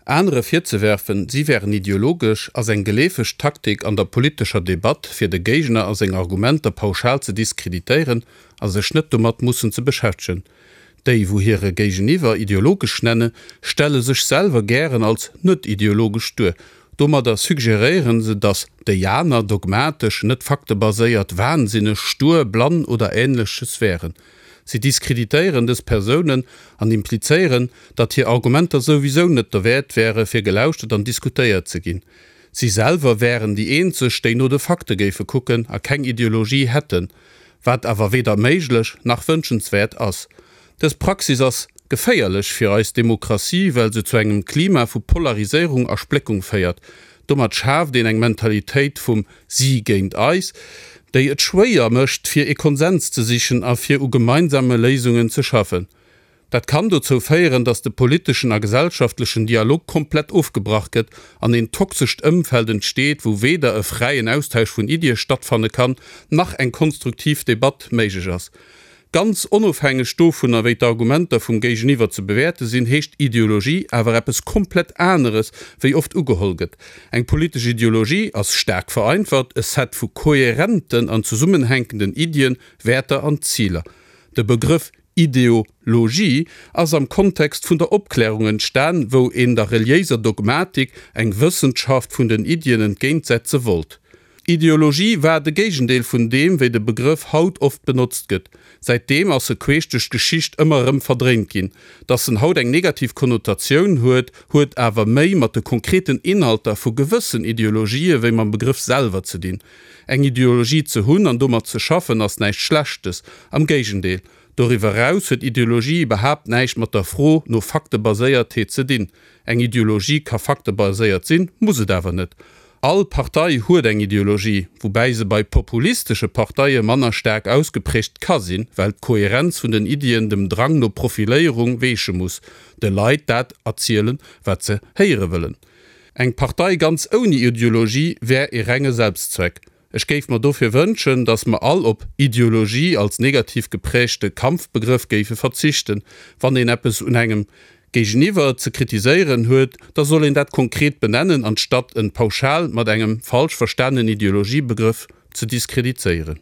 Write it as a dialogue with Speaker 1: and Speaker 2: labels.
Speaker 1: Anere virzewerfen, si wären ideologesch, ass eng geleefeg Taktik an der politescher Debatt, fir de Géigner a seng Argumenter pauschal ze diskreditéieren a sech net domat mussen ze beschäftegen. Déi, wou hire Géigeniwwer ideologesch nenne, stelle sech selwer gären als net ideologesch duer. Domadder suggeréiere se, datt déi aner dogmatesch, net faktebaséiert, wahnsinneg, stur, blann oder Ähnleches wären. Si diskreditéieren dës Persounen an implizéieren, datt hir Argumenter souwisou net derwäert wäre fir gelauschtert an diskutéiert ze ginn. Si selwer wären déi eenzeg, déi no de Fakte géife kucken a keng Ideologie hätten. Wat awer weder méiglech nach wënschenswäert ass. Dës Praxis ass geféierlech fir eis Demokratie, well se zu engem Klima vu Polariséierung a Spléckung féiert. Domat schaaft een eng Mentalitéit vum si géint eis, déi et schwéier mécht, fir ee Konsens ze sichen a fir u gemeinsame Léisungen ze schaffen. Dat kann dozou féieren, datt de politeschen a gesellschaftlechen Dialog komplett ofgebrach gëtt an een toxescht Ëmfeld entsteet, wou weder e fräien Austausch vun Iddie stattfanne kann, nach eng konstruktiv Debatt méiglech ass. Ganz onofhängeg dovunner, wéi d'Argumenter vum Géigeniwwer ze bewäerte sinn, heescht Ideologie awer eppes komplett aneres, wéi oft ugeholl gëtt. Eng politesch Ideologie ass, staark vereinfacht, e Set vu kohärenten an zesummenhänkenden Iddien, Wäerter an Ziler. De Begrëff Ideologie ass am Kontext vun der Opklärung entstan, wou een der reliéiser Dogmatik eng Wëssenschaft vun den Iddien entgéintsetze wollt. Ideologie war de Géigendeel vun deem, wéi de Begrëff haut oft benotzt gëtt. Säitdeem ass e queesch duerch d'Geschicht ëmmer erëm verdréint ginn. Datt en haut eng negativ Konnotatioun huet, huet awer méi mat de konkreten Inhalter vu gewëssen Ideologië wéi mam Begrëff selwer ze dinn. Eng Ideologie ze hunn an domat ze schaffen ass näischt Schlechtes, am Géigendeel. Doriwwer eraus huet Ideologie iwwerhaapt näischt mat der Fro no Faktebaséiertheet ze dinn. Eng Ideologie ka faktebaséiert sinn, muss et awer net. All Partei huet eng Ideologie, woubäi se bei populistesche Parteie manner staark ausgeprägt ka sinn, well d'Kohärenz vun den Iddien dem Drang no Profiléierung weeche muss, de Leit dat erzielen, wat se héiere wëllen. Eng Partei ganz ouni Ideologie wär ee renge Selbstzweck. Ech géif mer dofir wënschen, datt mer all op Ideologie als negativ geprägte Kampfbegrëff géife verzichten. Wann een eppes un engem Géigeniwwer ze kritiséieren huet, da soll een dat konkret benennen, anstatt en pauschal mat engem falsch verstanenen Ideologiebegrëff ze diskredizéieren.